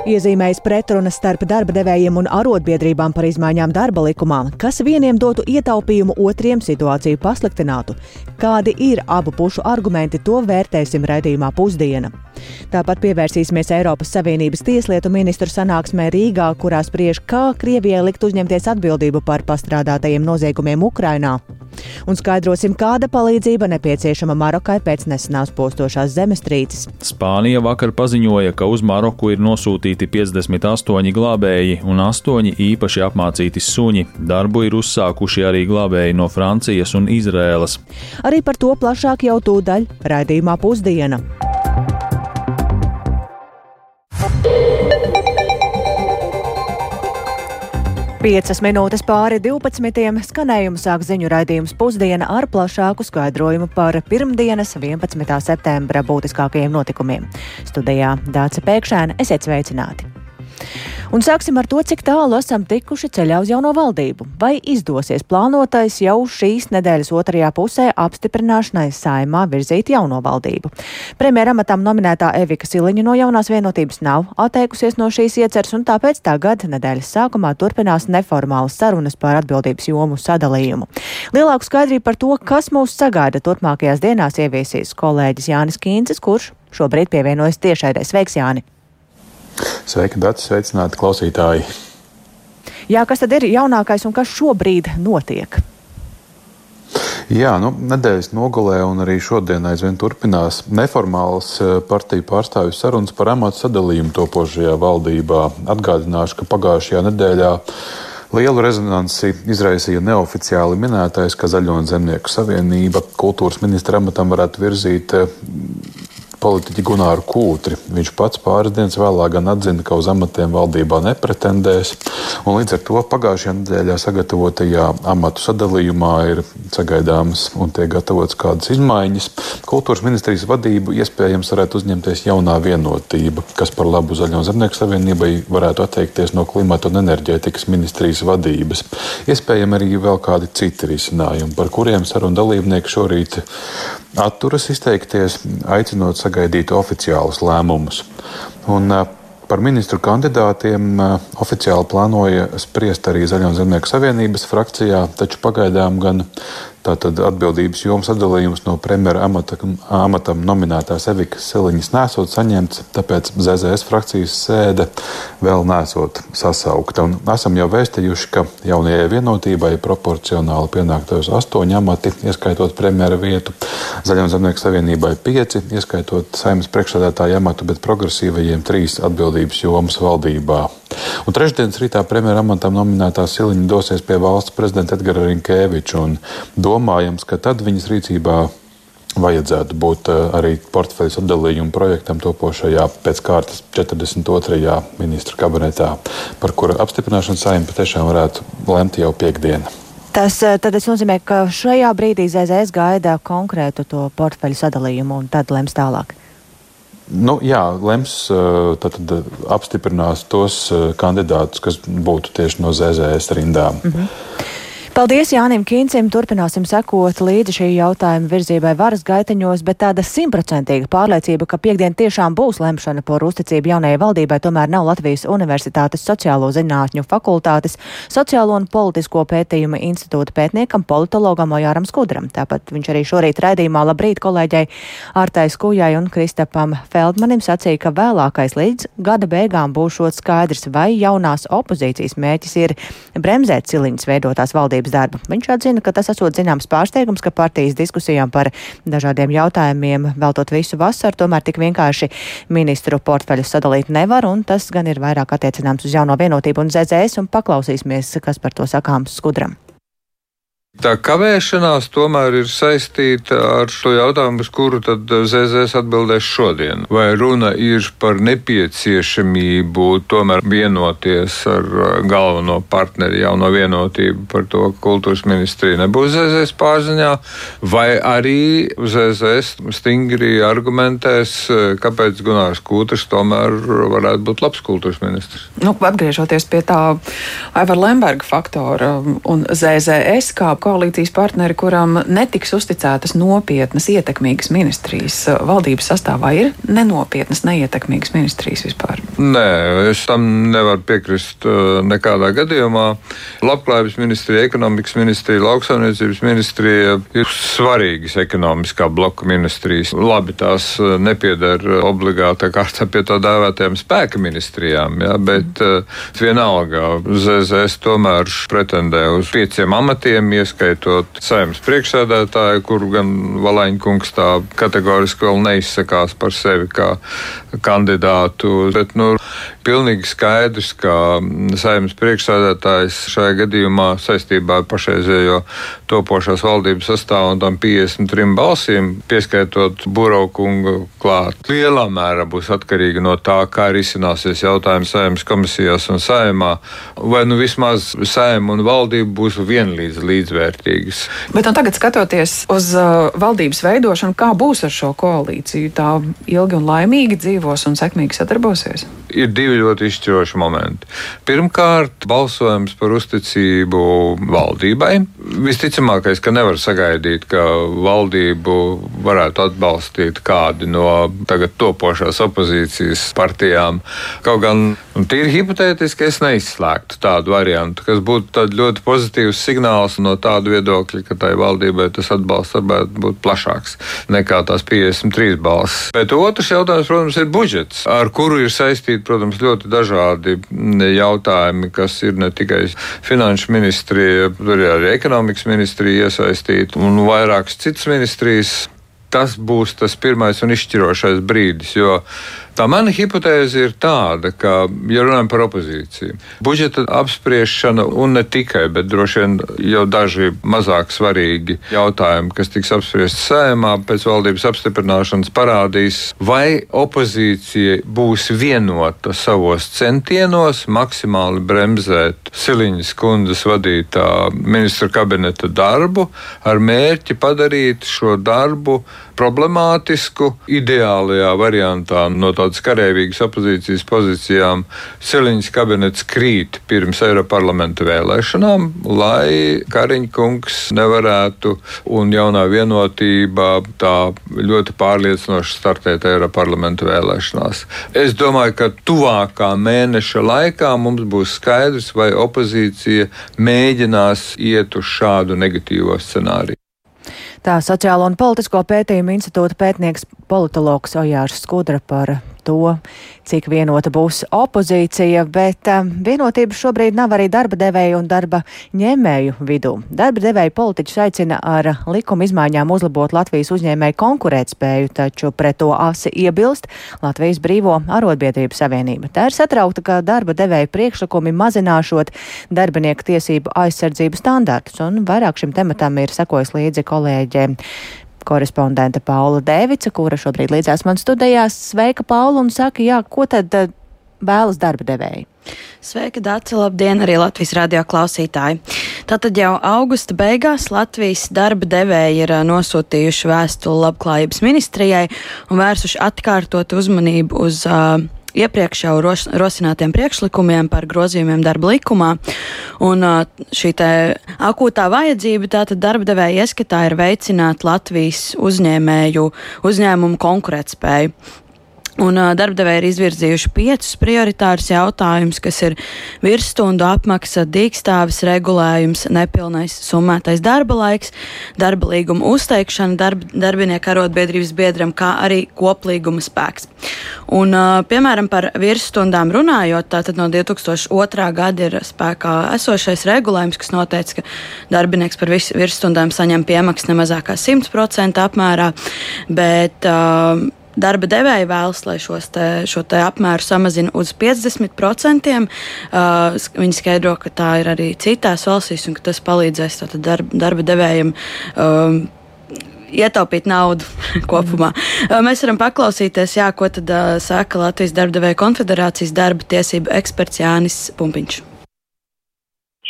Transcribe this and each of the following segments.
Iezīmējas pretrunas starp darba devējiem un arotbiedrībām par izmaiņām darba likumā, kas vieniem dotu ietaupījumu, otriem situāciju pasliktinātu. Kādi ir abu pušu argumenti, to vērtēsim raidījumā Pusdiena. Tāpat pievērsīsimies Eiropas Savienības tieslietu ministru sanāksmē Rīgā, kurā spriež, kā Krievijai likt uzņemties atbildību par pastrādātajiem noziegumiem Ukrainā. Un skaidrosim, kāda palīdzība nepieciešama Marokai pēc nesenās postošās zemestrīces. Spānija vakar paziņoja, ka uz Maroku ir nosūtīti 58 glābēji un 8 īpaši apmācīti suņi. Darbu ir uzsākuši arī glābēji no Francijas un Izrēlas. Arī par to plašāk jau tūdaļ raidījumā Pusdiena. Piecas minūtes pāri 12. Skanējumu sāk ziņu raidījums Pusdiena ar plašāku skaidrojumu par pirmdienas 11. septembra būtiskākajiem notikumiem. Studijā Dāce Pēkšēna, esiet sveicināti! Un sāksim ar to, cik tālu esam tikuši ceļā uz jauno valdību. Vai izdosies plānotais jau šīs nedēļas otrajā pusē apstiprināšanai Saeimā virzīt jauno valdību? Premjera amatam nominētā Evika Siliņa no Jaunās Vienotības nav atteikusies no šīs ieceres, un tāpēc tagad nedēļas sākumā turpinās neformālas sarunas par atbildības jomu sadalījumu. Lielāku skaidrību par to, kas mūs sagaida turpmākajās dienās, ieviesīs kolēģis Jānis Kīncis, kurš šobrīd pievienojas tiešraidē. Sveiks, Jāni! Sveiki, Dati, sveicināti klausītāji! Jā, kas tad ir jaunākais un kas šobrīd notiek? Jā, nedēļas nogalē un arī šodien aizvien turpinās neformālas partiju pārstāvju sarunas par amatu sadalījumu topošajā valdībā. Atgādināšu, ka pagājušajā nedēļā lielu rezonansi izraisīja neoficiāli minētais, ka Zaļo un Zemnieku savienība kultūras ministra amatam varētu virzīt politiķi Gunāru Kūtri. Viņš pats pāris dienas vēlāk gan atzina, ka uz amatiem valdībā nepretendēs, un līdz ar to pagājušajā nedēļā sagatavotajā amatu sadalījumā ir sagaidāmas un tiek gatavotas kādas izmaiņas. Kultūras ministrijas vadību iespējams varētu uzņemties Jaunā Vienotība, kas par labu Zaļo un Zemnieku savienībai varētu atteikties no klimata un enerģētikas ministrijas vadības. Iespējami arī vēl kādi citi risinājumi, par kuriem sarunu dalībnieki šorīt atturas izteikties, aicinot sagaidīt oficiālus lēmumus. Un par ministru kandidātiem oficiāli plānoja spriest arī Zaļo un Zemnieku savienības frakcijā, taču pagaidām gan tātad atbildības jomas sadalījums no premjera amatam nominētās Evikas Siliņas nesot saņemts, tāpēc ZZS frakcijas sēde vēl nesot sasaukta. Un esam jau vēstījuši, ka Jaunajai Vienotībai proporcionāli pienāktos 8 amati, ieskaitot premjera vietu, Zaļo un Zemnieku savienībai 5, ieskaitot Saeimas priekšsēdētāja amatu, bet progresīvajiem 3 atbildības jomas valdībā. Un trešdienas rītā premjera amatam nominētā Siliņa dosies pie valsts prezidenta Edgara Rinkēviča, un domājams, ka tad viņas rīcībā vajadzētu būt arī portfeļu sadalījuma projektam topošajā pēc kārtas 42. ministru kabinetā, par kura apstiprināšanu Saeima patiešām varētu lemt jau piekdiena. Tas nozīmē, ka šajā brīdī ZZS gaida konkrētu to portfeļu sadalījumu un tad lems tālāk. Jā, lems tad apstiprinās tos kandidātus, kas būtu tieši no ZZS rindām. Paldies Jānim Kīncim, turpināsim sekot līdzi šī jautājuma virzībai varas gaiteņos, bet tāda 100% pārliecība, ka piekdien tiešām būs lemšana par uzticību jaunajai valdībai, tomēr nav Latvijas Universitātes sociālo zinātņu fakultātes sociālo un politisko pētījumu institūta pētniekam, politologam Ojāram Skudram. Tāpat viņš arī šorīt raidījumā Labrīt kolēģei Ārtai Skujai un Kristapam Feldmanim sacīja, ka vēlākais līdz gada beigām būšot skaidrs, vai jaunās opozīcijas mērķis ir bremzēt Siliņas veidotās valdības darbu. Viņš atzina, ka tas esot zināms pārsteigums, ka partijas diskusijām par dažādiem jautājumiem veltot visu vasaru, tomēr tik vienkārši ministru portfeļus sadalīt nevar, un tas gan ir vairāk attiecināms uz Jauno Vienotību un ZZS, un paklausīsimies, kas par to sakāms Skudram. Tā kavēšanās tomēr ir saistīta ar šo jautājumu, uz kuru tad ZZS atbildēs šodien. Vai runa ir par nepieciešamību tomēr vienoties ar galveno partneri Jauno Vienotību par to, ka kultūras ministrija nebūs ZZS pārziņā, vai arī ZZS stingri argumentēs, kāpēc Gunārs Kūtris tomēr varētu būt labs kultūras ministrs? Atgriežoties pie tā Aivara Lemberga faktora un ZZS kā koalīcijas partneri, kuram netiks uzticētas nopietnas, ietekmīgas ministrijas valdības sastāvā, ir nenopietnas, neietekmīgas ministrijas vispār? Nē, es tam nevaru piekrist nekādā gadījumā. Labklājības ministrija, ekonomikas ministrija, lauksaimniecības ministrija ir svarīgas ekonomiskā bloka ministrijas. Labi, tās nepieder obligātā kārtā pie tā dēvētajām spēka ministrijām, ja, bet vienalga ZZS tomēr pretendē uz 5 amatiem, ieskaitot Saeimas priekšsēdētāju, kuru gan Valaņkungs tā kategoriski vēl neizsakās par sevi kā kandidātu. Bet, pilnīgi skaidrs, ka Saeimas priekšsēdētājs šajā gadījumā saistībā ar pašreizējo topošās valdības sastāvu un tam 53 balsīm, pieskaitot Buraukungu klāt, lielā mērā būs atkarīga no tā, kā risināsies jautājums Saeimas komisijās un Saeimā, vai vismaz Saeima un valdība būs vienlīdz līdzvērtīgas. Bet tagad skatoties uz valdības veidošanu, kā būs ar šo koalīciju? Tā ilgi un laimīgi dzīvos un sekmīgi sadarbosies? Ir 2 ļoti izšķiroši momenti. Pirmkārt, balsojums par uzticību valdībai. Visticamākais, ka nevar sagaidīt, ka valdību varētu atbalstīt kādi no tagad topošās opozīcijas partijām. Kaut gan tīri hipotētiski es neizslēgtu tādu variantu, kas būtu ļoti pozitīvs signāls no tāda viedokļa, ka tai valdībai tas atbalsts varētu būt plašāks nekā tās 53 balsis. Bet otrs jautājums, protams, ir budžets, ar kuru ir saistīti, protams, ļoti dažādi jautājumi, kas ir ne tikai finanšu ministrija, tur ir arī ekonomikas ministrija iesaistīta un vairākas citas ministrijas. Tas būs tas pirmais un izšķirošais brīdis, jo tā mana hipotēze ir tāda, ka, ja runājam par opozīciju, budžeta apspriešana un ne tikai, bet droši vien jau daži mazāk svarīgi jautājumi, kas tiks apspriesti Saeimā pēc valdības apstiprināšanas, parādīs, vai opozīcija būs vienota savos centienos maksimāli bremzēt Siliņas kundzes vadītā ministra kabineta darbu ar mērķi padarīt šo darbu problemātisku, ideālajā variantā no tādas karēvīgas opozīcijas pozīcijām Siliņas kabinets krīt pirms Eiroparlamenta vēlēšanām, lai Kariņa kungs nevarētu un jaunā vienotība tā ļoti pārliecinoši startēt Eiroparlamenta vēlēšanās. Es domāju, ka tuvākā mēneša laikā mums būs skaidrs, vai opozīcija mēģinās iet uz šādu negatīvo scenāriju. Tā Sociālo un politisko pētījumu institūta pētnieks politologs Ojārs Skudra par to, cik vienota būs opozīcija, bet vienotība šobrīd nav arī darba devēju un darba ņēmēju vidū. Darba devēju politiķus aicina ar likuma izmaiņām uzlabot Latvijas uzņēmēju konkurētspēju, taču pret to asi iebilst Latvijas Brīvo arotbiedrību savienība. Tā ir satraukta, ka darba devēju priekšlikumi mazināšot darbinieku tiesību aizsardzību standartus, un vairāk šim tematam ir sekojis līdzi kolēģe korespondente Paula Dēvica, kura šobrīd līdzās man studijās. Sveika, Paula, un saka, jā, ko tad vēlas darba devēji? Sveika, Dāca, labdien arī Latvijas radio klausītāji. Tātad jau augusta beigās Latvijas darba devēji ir nosūtījuši vēstuli Labklājības ministrijai un vērsuši atkārtot uzmanību uz iepriekš jau rosinātiem priekšlikumiem par grozījumiem darba likumā. Un šī te akūtā vajadzība tātad darba devēja ieskatā ir veicināt Latvijas uzņēmumu konkurētspēju. Un darbdevēji ir izvirzījuši 5 prioritārus jautājumus, kas ir virsstundu apmaksa, dīkstāves regulējums, nepilnais summētais darba laiks, darba līguma uzteikšana darbinieku arotbiedrības biedram, kā arī koplīguma spēks. Un, piemēram, par virsstundām runājot, tātad no 2002. gada ir spēkā esošais regulējums, kas noteica, ka darbinieks par virsstundām saņem piemaksu nemazāk kā 100% apmērā, bet darba devēji vēlas, lai šo te apmēru samazina uz 50%. Viņi skaidro, ka tā ir arī citās valstīs un ka tas palīdzēs tātad darba devējiem ietaupīt naudu kopumā. Mēs varam paklausīties, ko tad saka Latvijas darba devēju konfederācijas darba tiesību eksperts Jānis Pumpiņš.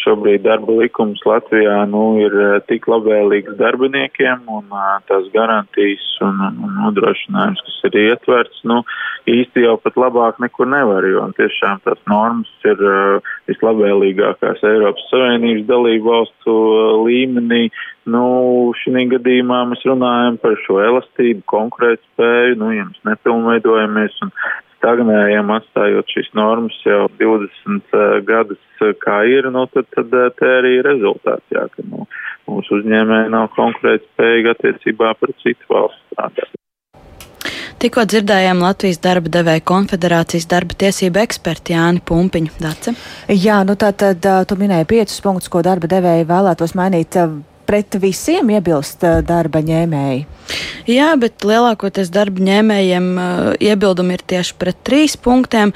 Šobrīd darba likums Latvijā ir tik labvēlīgs darbiniekiem un tās garantijas un nodrošinājums, kas ir ietverts, īsti jau pat labāk nekur nevar, jo tiešām tās normas ir vislabvēlīgākās Eiropas Savienības dalību valstu līmenī. Šī gadījumā mēs runājam par šo elastību, konkurētspēju, ja mēs nepilnveidojamies un stagnējam, atstājot šīs normas jau 20 gadus kā ir, tad te arī rezultāts, jā, ka mūsu uzņēmēji nav konkurētspējīgi attiecībā pret citu valstu strādātājiem. Tikko dzirdējām Latvijas darba devēja konfederācijas darba tiesību eksperti Jāni Pumpiņu. Dace? Jā, tātad tu minēji 5 punktus, ko darba devēji vēlētos mainīt. Pret visiem iebilst darba ņēmēji? Jā, bet lielākoties darba ņēmējiem iebildumi ir tieši pret 3 punktiem,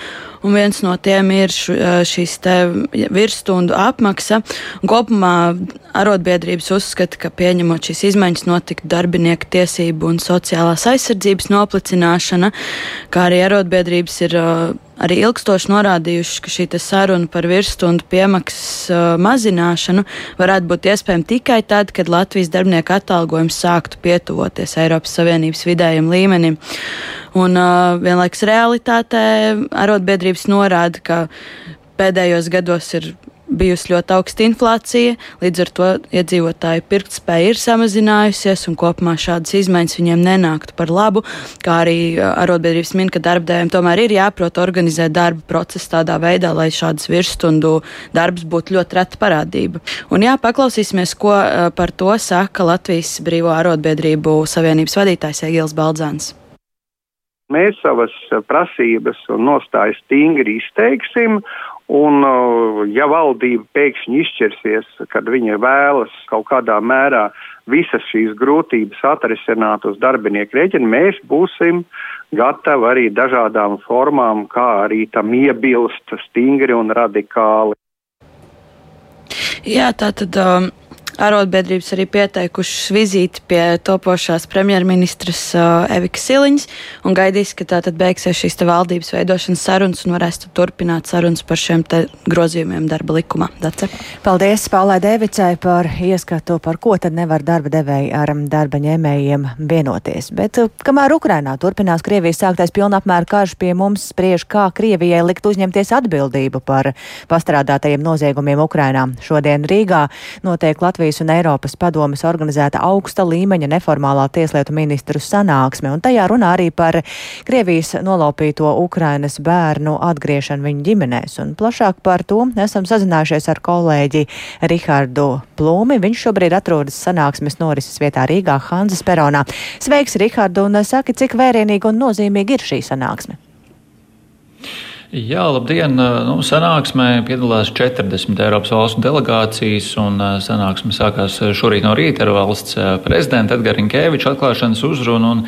un viens no tiem ir šīs te virsstundu apmaksa. Kopumā arotbiedrības uzskata, ka pieņemot šīs izmaiņas notiktu darbinieku tiesību un sociālās aizsardzības noplicināšana, kā arī arotbiedrības ir arī ilgstoši norādījuši, ka šī saruna par virsstundu piemaksas mazināšanu varētu būt iespējama tikai tad, kad Latvijas darbinieku atalgojums sāktu pietuvoties Eiropas Savienības vidējam līmenim. Un vienlaikus realitātē arotbiedrības norāda, ka pēdējos gados ir bijusi ļoti augsta inflācija, līdz ar to iedzīvotāju pirktspēja ir samazinājusies un kopumā šādas izmaiņas viņiem nenāktu par labu, kā arī arotbiedrības min, ka darbdevējiem tomēr ir jāprot organizēt darba procesu tādā veidā, lai šādas virsstundu darbs būtu ļoti reta parādība. Un jā, paklausīsimies, ko par to saka Latvijas Brīvo arotbiedrību savienības vadītājs Egils Baldzāns. Mēs savas prasības un nostājas stingri izteiksim, un ja valdība pēkšņi izšķirsies, kad viņa vēlas kaut kādā mērā visas šīs grūtības atrisināt uz darbinieku rēķina, mēs būsim gatavi arī dažādām formām, kā arī tam iebilst stingri un radikāli. Jā, tātad arotbiedrības arī pieteikušas vizīti pie topošās premjerministras Evikas Siliņas un gaidīs, ka tātad beigsies šīs te valdības veidošanas sarunas un varēs turpināt sarunas par šiem te grozījumiem darba likumā. Dace? Paldies Paulai Dēvicai par ieskatu, par ko tad nevar darba devēji ar darba ņēmējiem vienoties. Bet kamēr Ukrainā turpinās Krievijas sāktais pilnapmēra karš, pie mums spriež, kā Krievijai likt uzņemties atbildību par pastrādātajiem noziegumiem Ukrainā. Šodien Rīgā notiek Latvijas un Eiropas padomes organizēta augsta līmeņa neformālā tieslietu ministru sanāksme, un tajā runā arī par Krievijas nolaupīto Ukrainas bērnu atgriešanu viņu ģimenēs. Un plašāk par to esam sazinājušies ar kolēģi Rihardu Plūmi. Viņš šobrīd atrodas sanāksmes norises vietā Rīgā, Hanzas peronā. Sveiks, Rihardu, un saki, cik vērienīgi un nozīmīgi ir šī sanāksme? Jā, labdien! Sanāksmē piedalās 40 Eiropas valstu delegācijas, un sanāksme sākās šorīt no rīta ar valsts prezidenta Edgara Rinkēviča atklāšanas uzrunu, un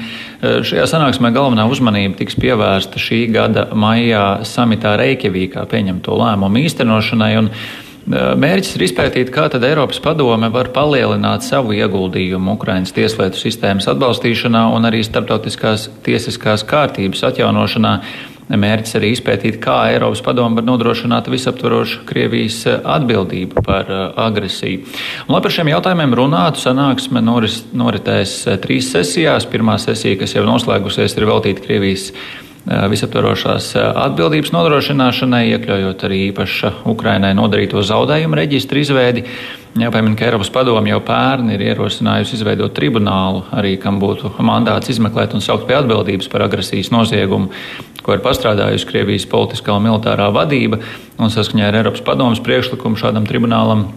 šajā sanāksmē galvenā uzmanība tiks pievērsta šī gada maijā samitā Reikjavīkā pieņemto lēmumu īstenošanai, un mērķis ir izpētīt, kā tad Eiropas padome var palielināt savu ieguldījumu Ukrainas tieslietu sistēmas atbalstīšanā un arī starptautiskās tiesiskās kārtības atjaunošanā. Mērķis arī izpētīt, kā Eiropas padome var nodrošināt visaptvarošu Krievijas atbildību par agresiju. Un, lai par šiem jautājumiem runātu, sanāksme noritēs 3 sesijās. Pirmā sesija, kas jau noslēgusies, ir veltīta Krievijas visaptvarošās atbildības nodrošināšanai, iekļaujot arī īpaša Ukrainai nodarīto zaudējumu reģistru izveidi. Jāpiemina, ka Eiropas padome jau pērn ir ierosinājusi izveidot tribunālu, arī kam būtu mandāts izmeklēt un saukt pie atbildības par agresijas noziegumu, ko ir pastrādājusi Krievijas politiskā un militārā vadība, un saskaņā ar Eiropas padomes priekšlikumu šādam tribunālam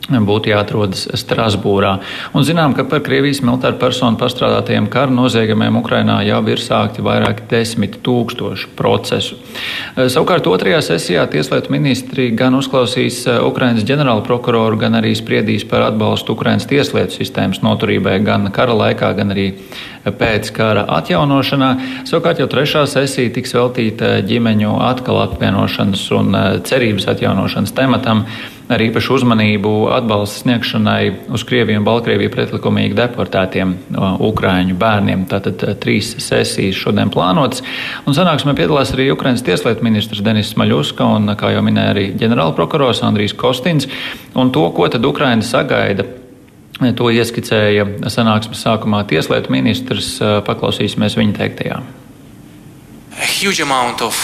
būtu jāatrodas Strasbūrā. Un zinām, ka par Krievijas militāru personu pastrādātajiem kara noziegumiem Ukrainā jau ir sākti vairāk 10 000 procesu. Savukārt otrajā sesijā tieslietu ministri gan uzklausīs Ukrainas ģenerālu prokuroru, gan arī spriedīs par atbalstu Ukrainas tieslietu sistēmas noturībai gan kara laikā, gan arī pēc kara atjaunošanā. Savukārt jau trešā sesija tiks veltīta ģimeņu atkal apvienošanas un cerības atjaunošanas tematam, ar īpašu uzmanību atbalsta sniegšanai uz Krieviju un Baltkrieviju pretlikumīgi deportētiem ukraiņu bērniem. Tātad 3 sesijas šodien plānotas. Un sanāksmē piedalās arī Ukrainas tieslietu ministrs Denis Smaļuska un, kā jau minēja, arī ģenerālprokurors Andrijs Kostins. Un to, ko tad Ukraina sagaida, to ieskicēja sanāksmes sākumā tieslietu ministrs. Paklausīsimies viņa teiktajā. A huge amount of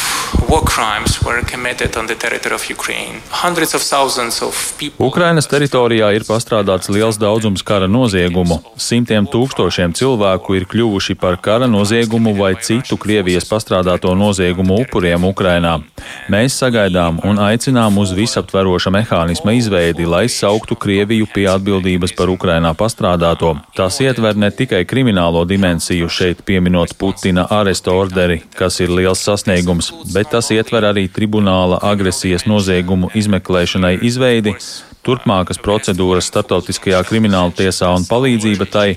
war crimes were committed on the territory of Ukraine. Hundreds of thousands of people. Ukrainas teritorijā ir pastrādāts liels daudzums kara noziegumu. Simtiem tūkstošiem cilvēku ir kļuvuši par kara noziegumu vai citu Krievijas pastrādāto noziegumu upuriem Ukrainā. Mēs sagaidām un aicinām uz visaptveroša mehānisma izveidi, lai sauktu Krieviju pie atbildības par Ukrainā pastrādāto. Tas ietver ne tikai kriminālo dimensiju, šeit pieminot Putina aresta orderi, kas ir liels sasniegums, bet tas ietver arī tribunāla agresijas noziegumu izmeklēšanai izveidi, turpmākas procedūras starptautiskajā krimināla tiesā un palīdzība tai,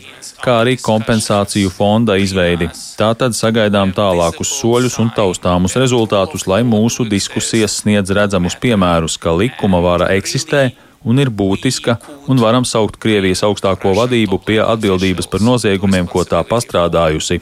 kā arī kompensāciju fonda izveidi. Tātad sagaidām tālākus soļus un taustāmus rezultātus, lai mūsu diskusijas sniedz redzamus piemērus, ka likuma vara eksistē un ir būtiska, un varam saukt Krievijas augstāko vadību pie atbildības par noziegumiem, ko tā pastrādājusi.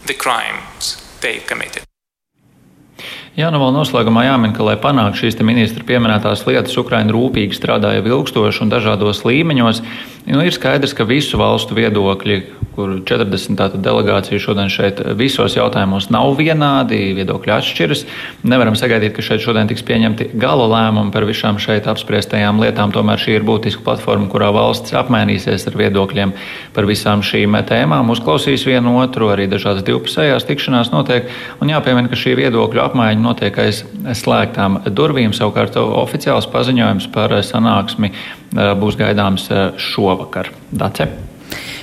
Jā, nu vēl noslēgumā jāmin, ka, lai panāktu šīs ministra pieminētās lietas, Ukraina rūpīgi strādāja ilgstoši un dažādos līmeņos. Ir skaidrs, ka visu valstu viedokļi, kur 40 delegācija šodien šeit visos jautājumos nav vienādi, viedokļi atšķiras. Nevaram sagaidīt, ka šeit šodien tiks pieņemti gala lēmumi par visām šeit apspriestajām lietām. Tomēr šī ir būtiska platforma, kurā valsts apmainīsies ar viedokļiem par visām šīm tēmām, uzklausīs vienu otru, arī dažādas divpusējās tikšanās notiek. Un jāpiemina, ka šī viedokļu apmaiņa notiek aiz slēgtām durvīm. Savukārt oficiāls paziņojums par sanāksmi būs gaidāms šovakar. Dace.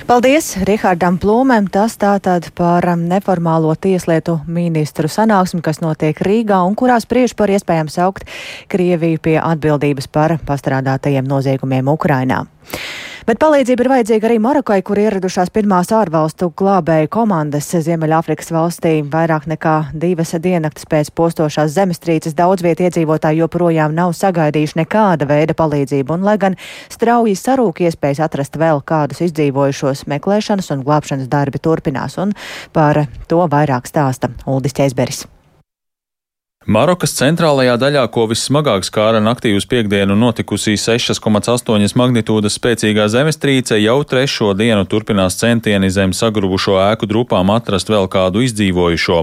Paldies Rihardam Plūmēm. Tas tātad par neformālo tieslietu ministru sanāksmi, kas notiek Rīgā un kurā spriež par iespējām saukt Krieviju pie atbildības par pastrādātajiem noziegumiem Ukrainā. Bet palīdzība ir vajadzīga arī Marokai, kur ieradušās pirmās ārvalstu glābēju komandas Ziemeļāfrikas valstī. Vairāk nekā 2 diennaktis pēc postošās zemestrīces daudz vietu iedzīvotāji joprojām nav sagaidījuši nekāda veida palīdzību, un lai gan strauji sarūk iespējas atrast vēl kādus izdzīvojušos, meklēšanas un glābšanas darbi turpinās, un par to vairāk stāsta Uldis Ķeizberis. Marokas centrālajā daļā, ko vissmagāk skāra naktī uz piektdienu notikusi 6,8 magnitūdas spēcīgā zemestrīce, jau 3. dienu turpinās centieni zem sagrubušo ēku drupām atrast vēl kādu izdzīvojušo.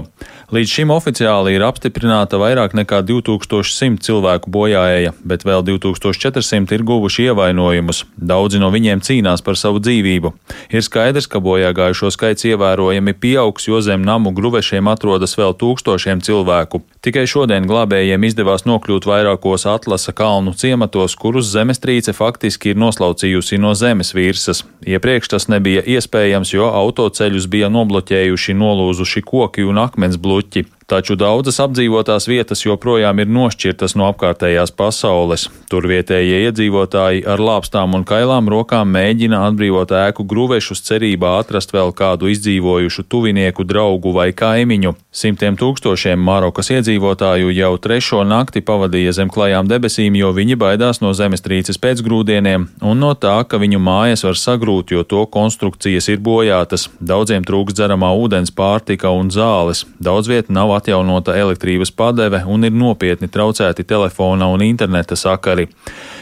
Līdz šim oficiāli ir apstiprināta vairāk nekā 2100 cilvēku bojāēja, bet vēl 2400 ir guvuši ievainojumus. Daudzi no viņiem cīnās par savu dzīvību. Ir skaidrs, ka bojāgājušo skaits ievērojami pieaugs, jo zem namu gruvešiem atrodas vēl tūkstošiem cilvēku. Tikai šodien glābējiem izdevās nokļūt vairākos Atlasa kalnu ciematos, kurus zemestrīce faktiski ir noslaucījusi no zemes virsmas. Iepriekš tas nebija iespējams, jo autoceļus bija nobloķējuši nolūzuši koki un akmens bluķi. Taču daudzas apdzīvotās vietas joprojām ir nošķirtas no apkārtējās pasaules. Tur vietējie iedzīvotāji ar lāpstām un kailām rokām mēģina atbrīvot ēku gruvešus cerībā atrast vēl kādu izdzīvojušu tuvinieku, draugu vai kaimiņu. Simtiem tūkstošiem Marokas iedzīvotāju jau 3. nakti pavadīja zem klajām debesīm, jo viņi baidās no zemestrīces pēcgrūdieniem un no tā, ka viņu mājas var sagrūt, jo to konstrukcijas ir bojātas. Daudziem trūkst dzeramā ūdens, pārtika un zāles. Daudz viet nav atjaunota elektrības padeve un ir nopietni traucēti telefona un interneta sakari.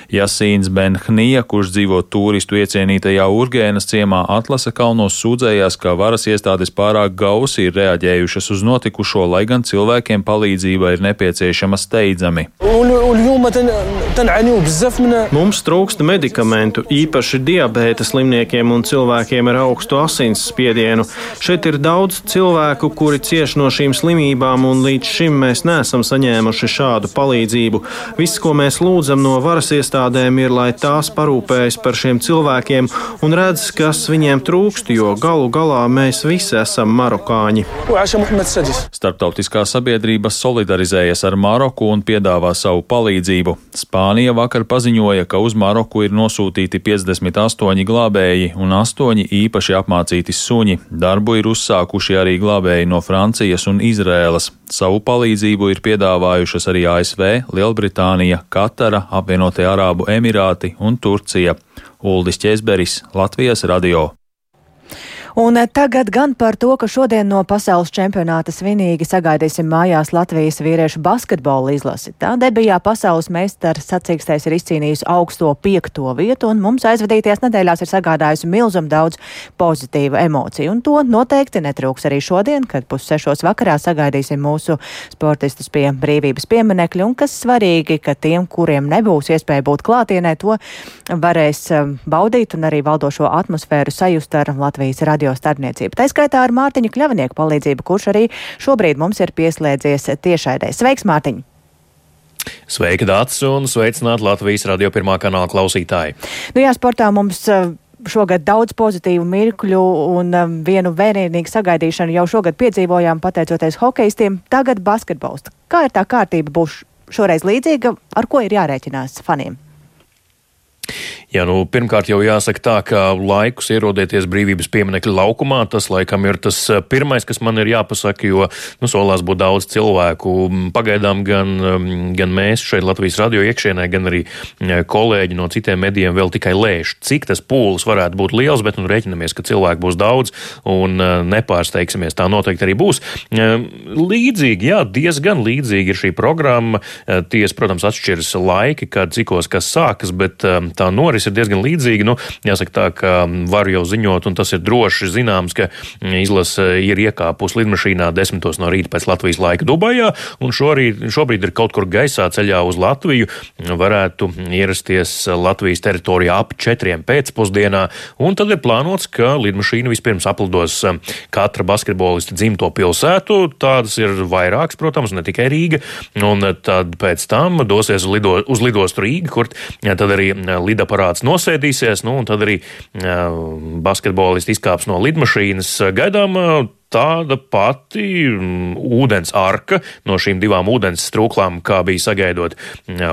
Jasīns Benhnija, kurš dzīvo turistu iecienītajā Urgēnas ciemā Atlasa kalnos, sūdzējās, ka varas iestādes pārāk gausi ir reaģējušas uz notikušo, lai gan cilvēkiem palīdzība ir nepieciešama steidzami. Mums trūkst medikamentu, īpaši diabēta slimniekiem un cilvēkiem ar augstu asinsspiedienu. Šeit ir daudz cilvēku, kuri cieš no šīm slimībām, un līdz šim mēs neesam saņēmuši šādu palīdzību. Viss, ko mēs lūdzam no varas iestādēm, ir, lai tās parūpējas par šiem cilvēkiem un redz, kas viņiem trūkst, jo galu galā mēs visi esam marokāņi. Starptautiskā sabiedrība solidarizējas ar Maroku un piedāvā savu palīdzību. Spānija vakar paziņoja, ka uz Maroku ir nosūtīti 58 glābēji un 8 īpaši apmācīti suņi. Darbu ir uzsākuši arī glābēji no Francijas un Izrēlas. Savu palīdzību ir piedāvājušas arī ASV, Lielbritānija, Katara, Apvienotie Arābu Emirāti un Turcija. Uldis Ķeizberis, Latvijas radio. Un tagad gan par to, ka šodien no pasaules čempionāta svinīgi sagaidīsim mājās Latvijas vīriešu basketbola izlasi. Tā debijā pasaules meistara sacīkstēs ir izcīnījusi augsto 5. vietu, un mums aizvadītajās nedēļās ir sagādājusi milzumu daudz pozitīvu emociju. Un to noteikti netrūks arī šodien, kad 5:30 vakarā sagaidīsim mūsu sportistus pie brīvības pieminekļa, un kas svarīgi, ka tiem, kuriem nebūs iespēja būt klātienē, to varēs baudīt un arī valdošo atmosfēru sajust ar Latvijas radio starpniecību. Tā skaitā ar Mārtiņa Kļavinieku palīdzību, kurš arī šobrīd mums ir pieslēdzies tiešraidē. Sveiks, Mārtiņ! Sveika, Dācis, un sveicināt Latvijas radio pirmā kanāla klausītāji. Nu jā, sportā mums šogad daudz pozitīvu mirkļu un vienu vērienīgu sagaidīšanu jau šogad piedzīvojām pateicoties hokejistiem, tagad basketbols. Kā ir tā kārtība būs šoreiz līdzīga, ar ko ir jārēķinās faniem? Jā, pirmkārt jau jāsaka tā, ka laikus ierodieties brīvības pieminekļa laukumā, tas laikam ir tas pirmais, kas man ir jāpasaka, jo solās būt daudz cilvēku. Pagaidām gan mēs šeit Latvijas radio iekšienē, gan arī kolēģi no citiem medijiem vēl tikai lēš, cik tas pūlis varētu būt liels, bet rēķinamies, ka cilvēku būs daudz un nepārsteigsimies, tā noteikti arī būs. Līdzīgi, jā, diezgan līdzīgi ir šī programma. Ties, protams, atšķiras laiki, kad cikos kas sākas, bet tā noris ir diezgan līdzīga. Jāsaka tā, ka varu jau ziņot, un tas ir droši zināms, ka izlase ir iekāpusi lidmašīnā 10 no rīta pēc Latvijas laika Dubajā, un šobrīd ir kaut kur gaisā ceļā uz Latviju. Varētu ierasties Latvijas teritorijā ap 4 pēcpusdienā, un tad ir plānots, ka lidmašīna vispirms aplidos katra basketbolista dzimto pilsētu. Tādas ir vairākas, protams, ne tikai Rīga, un tad pēc tam dosies uz lidostu Rīga, kur tad arī lidaparāts nosēdīsies, un tad arī basketbolisti izkāps no lidmašīnas. Gaidām tāda pati ūdens arka no šīm 2 ūdens strūklām, kā bija sagaidot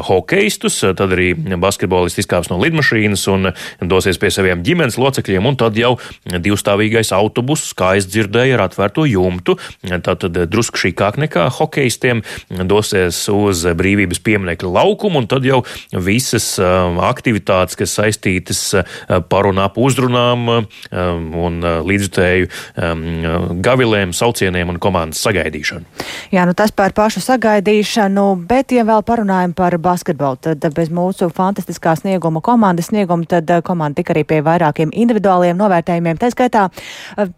hokejistus. Tad arī basketbolisti izkāps no lidmašīnas un dosies pie saviem ģimenes locekļiem, un tad jau 2-stāvīgais autobuss, kā es dzirdēju, ar atvērto jumtu, tātad drusku šīkāk nekā hokejistiem, dosies uz brīvības pieminekļa laukumu, un tad jau visas aktivitātes, kas saistītas par un ap uzrunām un līdzjutēju gavilēm, saucieniem un komandas sagaidīšanu. Jā, tas par pašu sagaidīšanu, bet, ja vēl parunājam par basketbolu, tad bez mūsu fantastiskā komandas snieguma, tad komanda tika arī pie vairākiem individuāliem novērtējumiem. Tā skaitā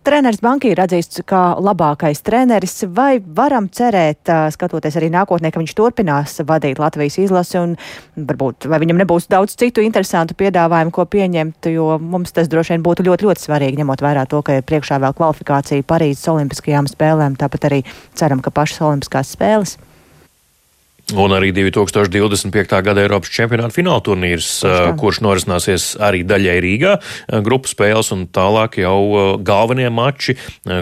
treneris Banki ir atzīsts kā labākais treneris. Vai varam cerēt, skatoties arī nākotnē, ka viņš turpinās vadīt Latvijas izlasi, un varbūt, vai viņam nebūs daudz citu interesantu piedāvājumu, ko pieņemt, jo mums tas droši vien būtu ļoti, ļoti svarīgi, ņemot vērā to, ka ir priekšā vēl kvalifikācija Parīzes Olimpiskajām spēlēm, tāpat arī ceram, ka pašas Olimpiskās spēles. Un arī 2025. gada Eiropas čempionāta fināla turnīrs, kurš norisināsies arī daļai Rīgā, grupu spēles un tālāk jau galvenie mači,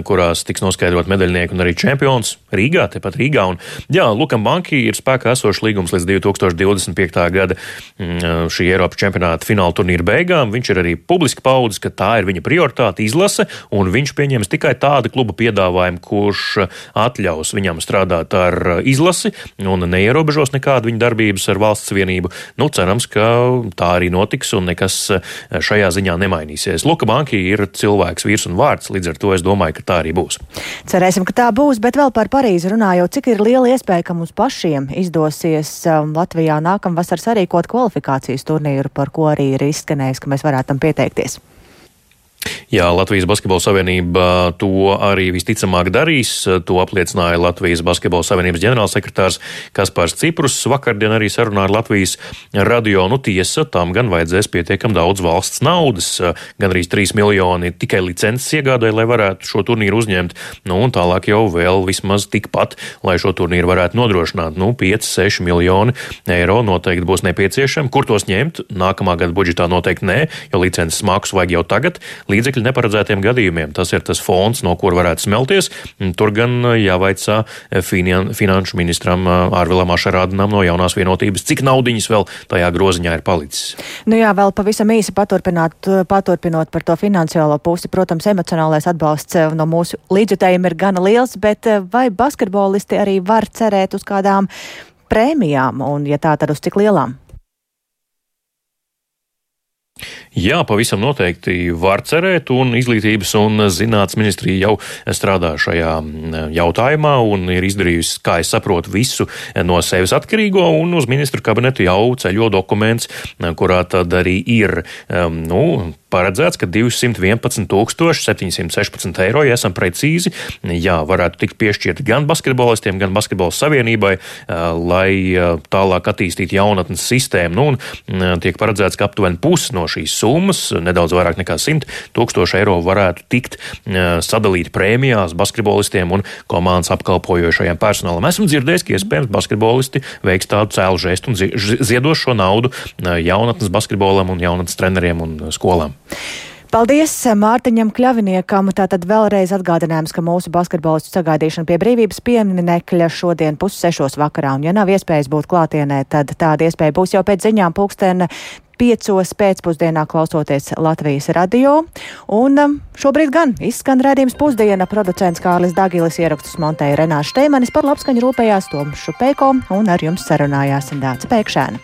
kurās tiks noskaidrot medaļnieki un arī čempions Rīgā, tepat Rīgā. Un, jā, Lukam Banki ir spēkā esošs līgums līdz 2025. gada šī Eiropas čempionāta fināla turnīra beigām. Viņš ir arī publiski paudis, ka tā ir viņa prioritāte izlase, un viņš pieņems tikai tādu klubu piedāvājumu, kurš atļaus viņam strādāt ar izlasi un neierobežos nekādu viņa darbības ar valsts vienību. Cerams, ka tā arī notiks un nekas šajā ziņā nemainīsies. Luka Banki ir cilvēks, vīrs un vārds, līdz ar to es domāju, ka tā arī būs. Cerēsim, ka tā būs, bet vēl par Parīzi runājot, cik ir liela iespēja, ka mums pašiem izdosies Latvijā nākamvasar sarīkot kvalifikācijas turnīru, par ko arī ir izskanējis, ka mēs varētu tam pieteikties. Jā, Latvijas Basketbola Savienība to arī visticamāk darīs. To apliecināja Latvijas Basketbola Savienības ģenerālsekretārs Kaspars Ciprus. Vakardien arī sarunā ar Latvijas radio. Tiesa, tam gan vajadzēs pietiekam daudz valsts naudas. Gan arī 3 miljoni tikai licences iegādāja, lai varētu šo turnīru uzņemt. Un tālāk jau vēl vismaz tikpat, lai šo turnīru varētu nodrošināt. 5-6 miljoni eiro noteikti būs nepieciešami. Kur tos ņemt? Nākamā gada budžetā noteikti nē, jo licences maksu vajag jau tagad. Līdzekļi neparedzētiem gadījumiem. Tas ir tas fonds, no kur varētu smelties. Tur gan jāvaicā finanšu ministram Ārvilam Ašarādinam no Jaunās vienotības, cik naudiņas vēl tajā groziņā ir palicis. Jā, vēl pavisam īsi paturpinot par to finansiālo pusi. Protams, emocionālais atbalsts no mūsu līdzjutējiem ir gana liels, bet vai basketbolisti arī var cerēt uz kādām prēmijām, un ja tā, tad uz cik lielām? Jā, pavisam noteikti var cerēt, un Izglītības un zinātnes ministrija jau strādā šajā jautājumā un ir izdarījusi, kā es saprotu, visu no sevis atkarīgo, un uz ministru kabinetu jau ceļo dokuments, kurā tad arī ir, paredzēts, ka 211 716 eiro, ja esam precīzi, varētu tikt piešķirti gan basketbolistiem, gan basketbola savienībai, lai tālāk attīstītu jaunatnes sistēmu. Un tiek paredzēts, ka aptuveni pusi no šīs summas, nedaudz vairāk nekā 100 000 eiro, varētu tikt sadalīt prēmijās basketbolistiem un komandas apkalpojošajiem personālam. Esmu dzirdējis, ka iespējams basketbolisti veiks tādu cēlu žestu un ziedos šo naudu jaunatnes basketbolam un jaunatnes treneriem un skolām. Paldies Mārtiņam Kļaviniekam. Tātad vēlreiz atgādinājums, ka mūsu basketbolistu sagaidīšana pie brīvības pieminekļa šodien 5:30 vakarā. Un ja nav iespējas būt klātienē, tad tāda iespēja būs jau pēc ziņām 5:00 pēcpusdienā klausoties Latvijas radio. Un šobrīd gan izskan redzījums pusdiena. Producents Kārlis Dagilis, ierakstus montēja Renāša Šteimanis, par labskaņu rūpējās Toms Šupēko un ar jums sarunājās Dāca Pēkšēna.